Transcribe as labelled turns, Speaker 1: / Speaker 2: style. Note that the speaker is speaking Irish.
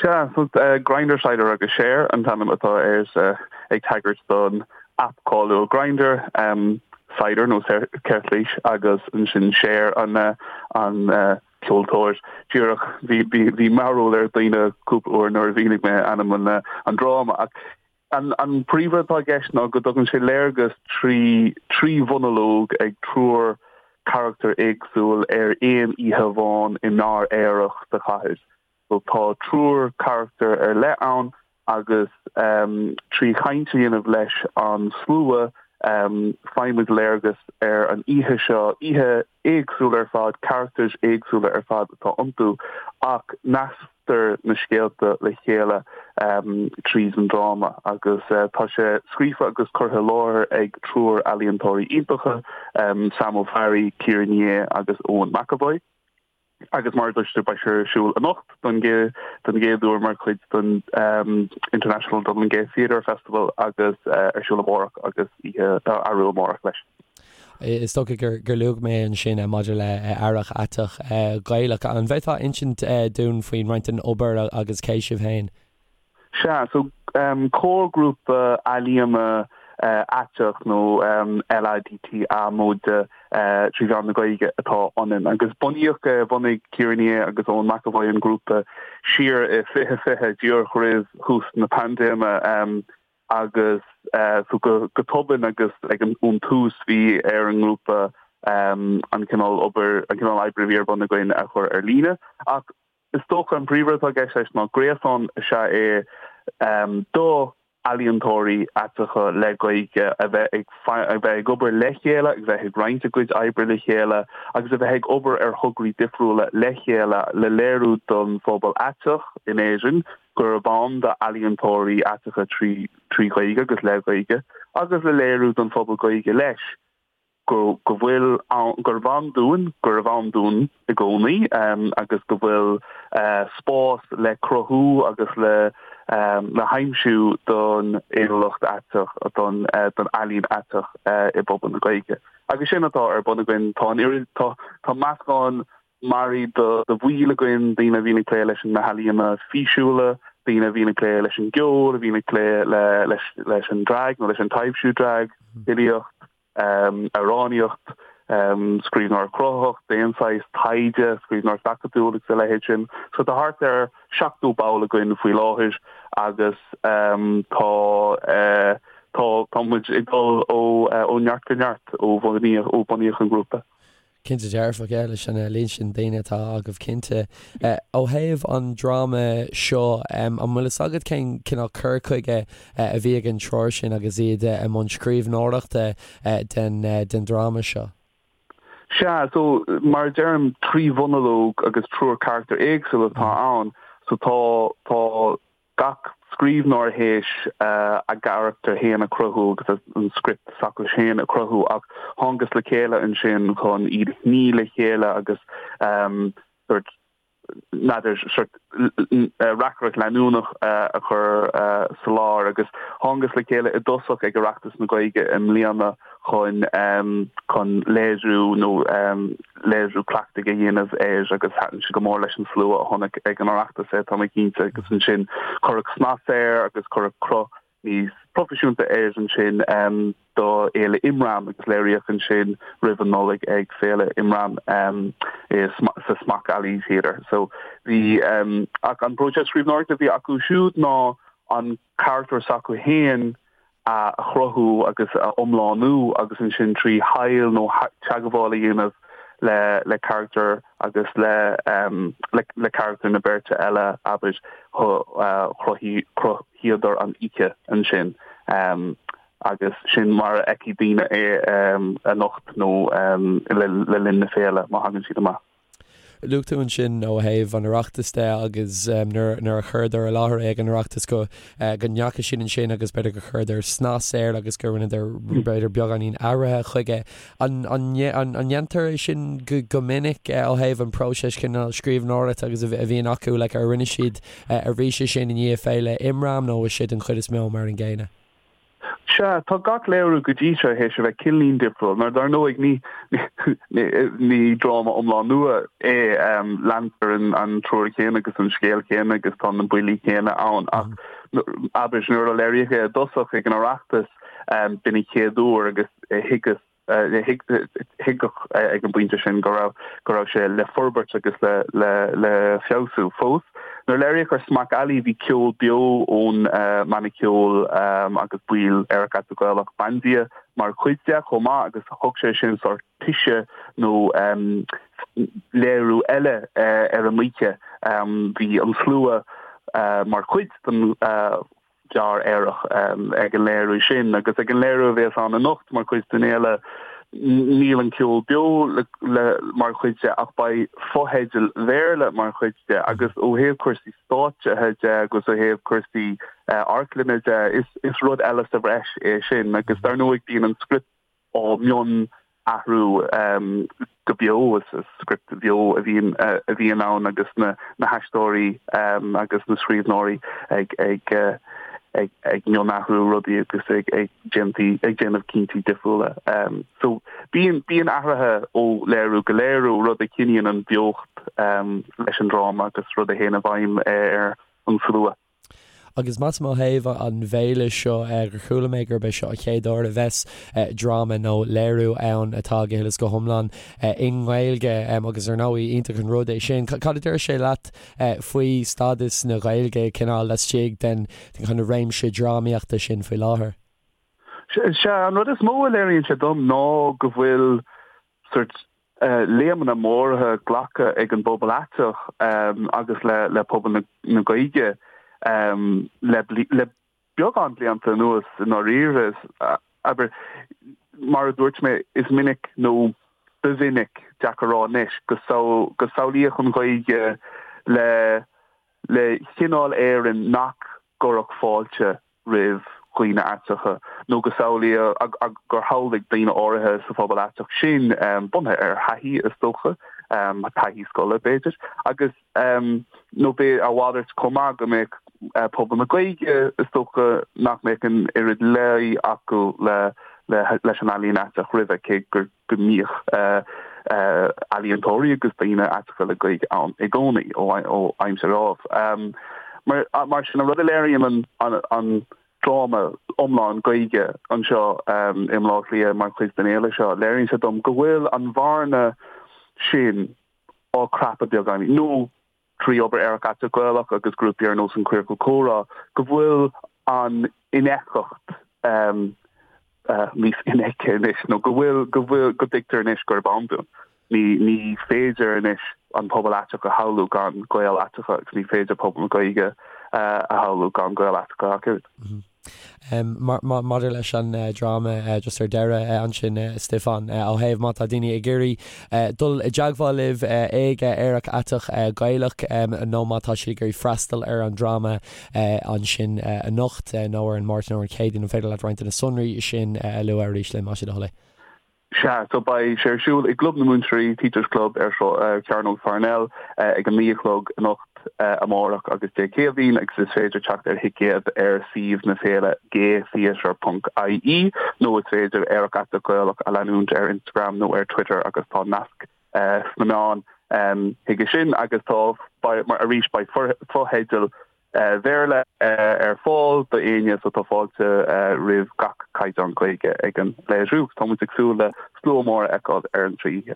Speaker 1: Sea, so Grindr, Cider agus Cher an t-ainm atá air, ag tagairt don aip cáiliúil Grindr, Cider nó ceirtlís agus ansin Cher an an ceoltóir. Díreach, bhí bhí mearbhall ar dhaoine cúpla uair nuair a mhínigh mé ainm an an dráma ach an an príomhrud atá i gceist ná go dtugann sé léargas trí thrí mhonalóg ag triúr carachtar éagsúil ar aon oíche amháin i mbeár aerach sa chathair. So tá triúr carachtar ar leith ann agus trí chaint a dhéanamh leis an slua faighimid léargas ar an oíche seo, oíche éagsúil ar fad, carachtair éagsúla ar fad atá iontu ach nasctar na scéalta le chéile tríd an dráma agus tá sé scríofa agus curtha i láthair ag triúr ealaíontóirí iontacha, Sam Ó Fearraigh, Ciara Ní É agus Eoin McEvoy. Agus mar a dúirt tú, beidh sé ar siúl anocht don don gcéad uair mar chuid den International Dublin Gay Theatre Festival agus ar siúl amárach agus oíche arú amárach leis.
Speaker 2: Is dócha gur gur luaigh mé ansin maidir le Earrach Aiteach Gaelach. An bhféadfá insint dúinn faoin roinnt den obair agus cé sibh féin?
Speaker 1: Sea, so comharghrúpa ealaíona aiteach nó LADTA móide trí mheán na Gaeilge atá ionainn. Agus bunaíodh é, bhunaigh Ciara Ní É agus Eoin McEvoy an grúpa siar i 2020, díreach roimh thús na paindéime agus so go tobann agus ag an ón tús bhí ar an ngrúpa an cineál obair, an cineál oibre a bhí ar bun againn a chur ar líne. Ach Is dócha an príomhrud atá i gceist leis ná gréasán is ea é do ealaíontóirí aiteacha le Gaeilge a bheith ag a bheith ag obair le chéile, a bheith ag roinnt a gcuid oibre le chéile agus a bheith ag obair ar thograí difriúla le chéile le léiriú don phobal aiteach in Éirinn gurb ann d'ealaíontóirí aiteacha trí Ghaeilge agus le Gaeilge agus le léiriú don phobal Gaeilge leis. go go bhfuil ann, gurbh ann dúinn, gurbh ann dúinn i gcónaí agus go bhfuil spás le cruthú agus le le haimsiú don fhéiniúlacht aiteach, don don ealaín aiteach i bpobal na Gaeilge. Agus sin atá ar bun againn. Tá an oiread, tá tá meascán mearaí de de bhaill againn, daoine a bhíonn ag plé leis na healaíona físiúla, daoine a bhíonn ag plé leis an gceol, a bhíonn ag plé le leis leis an drag nó leis an taibhsiú drag, filíocht, amhránaíocht, scríbhneoireacht chruthaitheach d'aon saghas, taighde, scríbhneoireacht acadúil agus a leithéid sin. So tá thart ar 70 ball againn faoi láthair agus tá tá tá muid ag dul ó ó neart go neart ó bhunaíodh ó bunaíodh an grúpa.
Speaker 2: Cinnte dearfach, yeah, leis an líon sin daoine atá agaibh cinnte. Ó thaobh an dráma seo, an bhfuil fhios agat cén cineál cur chuige a bhí ag an triúr sin agus iad i mbun scríbhneoireachta den den dráma seo?
Speaker 1: Sea, so mar a deirim, trí mhonalóg agus triúr carachtar éagsúil atá ann, so tá tá gach scríbhneoir théis a gcarachtar féin a chruthú agus an script s'acu féin a chruthú ach thángthas le chéile ansin chun iad a shní le chéile agus sort n'fheadar sort reacaireacht leanúnach a chur sa lár agus thángthas le chéile i dtosach ag Oireachtas na Gaeilge i mbliana chun chun léiriú nó léiriú cleachtaidh a dhéanamh air agus thaitin sé go mór leis an slua a chonaic ag an Oireachtas é, tá mé cinnte, agus ansin cuireadh snas air agus cuireadh cruth níos proifisiúnta air ansin do Fhéile Imram agus léiríodh ansin roimh an Nollaig ag Féile Imram sa Smock Alley Theatre. So bhí ach an próiseas scríbhneoireachta a bhí acu siúd ná an carachtar s'acu féin a chruthú agus a iomlánú agus ansin trí thadhall nó teagmháil a dhéanamh le le carachtar agus le le carachtar na beirte eile, abair, chruthaíodar an oíche ansin agus sin mar a fheicfidh daoine é anocht nó le linn na féile má thagann siad amach.
Speaker 2: Luaigh tú ansin ó thaobh an Oireachtais de agus nuair a chuireadar i láthair é ag an Oireachtas go go ndeachaigh siad ansin agus b'fhéidir gur chuireadar snas air agus gur rinneadar b'fhéidir beagáinín athraithe chuige. An ndéantar é sin go minic ó thaobh an próiseas cineál scríbhneoireachta agus a bhíonn acu like ar rinne siad arís é sin i ndiaidh Féile Imram nó is é den chuid is mó mar an gcéanna?
Speaker 1: Sea, tá gach léiriú go dtí seo théis a bheith cineáilín difriúil, mar dar ndóigh ní ní dráma iomlán nua é, leantar an triúr céanna agus an scéal céanna agus tá na buillí céanna ann ach abair nuair a léiríodh é i dtosach ag an Oireachtas b'in an chéad uair agus thuigeas Tuigeadh ag an bpointe sin go raibh go raibh sé le forbairt agus le le le feabhsú fós. Nuair a léiríodh ar Smock Alley bhí ceol beo ón mbanna ceoil agus baill Aerach Aiteach Gaelach Bandia mar chuid de chomh maith agus thug sé sin sórt toise nó léiriú eile ar an oíche. Bhí an slua mar chuid den bheár aerach ag an léiriú sin agus ag an léiriú a bhéas ann anocht mar chuid den fhéile níl an ceol beo le mar chuid de ach beidh fotheidil Bhéarla mar chuid de agus ó thaobh cúrsaí stáitsithe de agus ó thaobh cúrsaí amharclainne de is is rud eile sa bhreis é sin agus dar ndóigh bíonn an script á mionathrú go beo. Is script bheo a bhíonn a bhíonn ann agus na na haisteoirí agus na scríbhneoirí ag ag ag ag mionathrú rudaí agus ag ag déantaí ag déanamh cinntí difriúla. So bíonn bíonn athruithe ó léiriú go léiriú, rud a choinníonn an bheocht leis an dráma agus rud a théann i bhfeidhm ar an slua.
Speaker 2: Agus measaim ó thaobh an bhféile seo gur chuala mé gurb é seo an chéad uair a bheas dráma nó léiriú ann atá go huile is go hiomlán i nGaeilge agus ar ndóigh iontach an rud é sin. Cad a deir sé leat faoi stádas na Gaeilge cineál laistigh den kind of réimse drámaíochta sin faoi láthair?
Speaker 1: Sea, an rud is mó a léiríonn sé dom ná go bhfuil sort léimeanna móra glactha ag an bpobal aiteach agus le pobal na Gaeilge le beagán blianta anuas i ndáiríre. Abair, mar a dúirt mé, is minic nó ba mhinic, deacair a rá anois, go samhlaíodh an Ghaeilge le le cineál Éireann nach gcuirfeadh fáilte roimh dhaoine aiteacha, nó go samhlaíodh gur shamhlaigh daoine áirithe sa phobal aiteach sin, bunaithe ar thaithí is dócha, taithí scoile b'fhéidir, agus nó b'é a mhalairt chomh maith, go mbeadh pobal na Gaeilge, is dócha, nach mbeadh an oiread luí acu leis an ealaín aiteach roimhe, cé gur. go mbíodh ealaíontóirí agus daoine aiteacha le Gaeilge ann i gcónaí ó aimsir Ádhaimh. Mar sin, an rud a léiríonn an dráma iomlán Gaeilge anseo i mBaile Átha Cliath mar chuid den fhéile seo, léiríonn sé dom go bhfuil an bhearna sin á crapadh beagáinín, nó trí obair Aerach Aiteach Gaelach agus grúpaí ar nós an Queercal Comhrá, go bhfuil an infheictheacht níos infheicthe anois, nó go bhfuil, go bhfuil, go dtuigtear anois gurb ann dúinn. Ní, ní féidir anois an pobal aiteach a shamhlú gan Gaeil aiteacha agus ní féidir pobal na Gaeilge a shamhlú gan Gaeil aiteacha ach oiread.
Speaker 2: Maidir leis an dráma just ar deireadh ansin Stiofán, ó thaobh má tá daoine ag iarraidh dul i dteagmháil libh ag Aerach Aiteach Gaelach nó má tá siad ag iarraidh freastal ar an dráma ansin anocht nó ar an Máirt nó ar an Chéadaoin, an féidir leat roinnt de na sonraí sin a lua arís linn más é do thoil é?
Speaker 1: Sea, so beidh sé ar siúl i gClub na Múinteoirí, Teachers Club, ar Chearnóg Pharnell ag a 9 a chlog anocht, amárach agus Dé Céadaoin agus is féidir teacht ar thicéad ar suíomh na féile gaytheatre ponc ie nó is féidir Aerach Aiteach Gaelach a leanúint ar Instagram nó ar Twitter agus tá nasc sna meáin chuige sin agus tá, arís, beidh fotheidil Bhéarla ar fáil do éinne so tá fáilte roimh gach caighdeán Gaeilge ag an léiriú. Tá muid ag súil le slua mór a fheiceáil ar an trí oíche.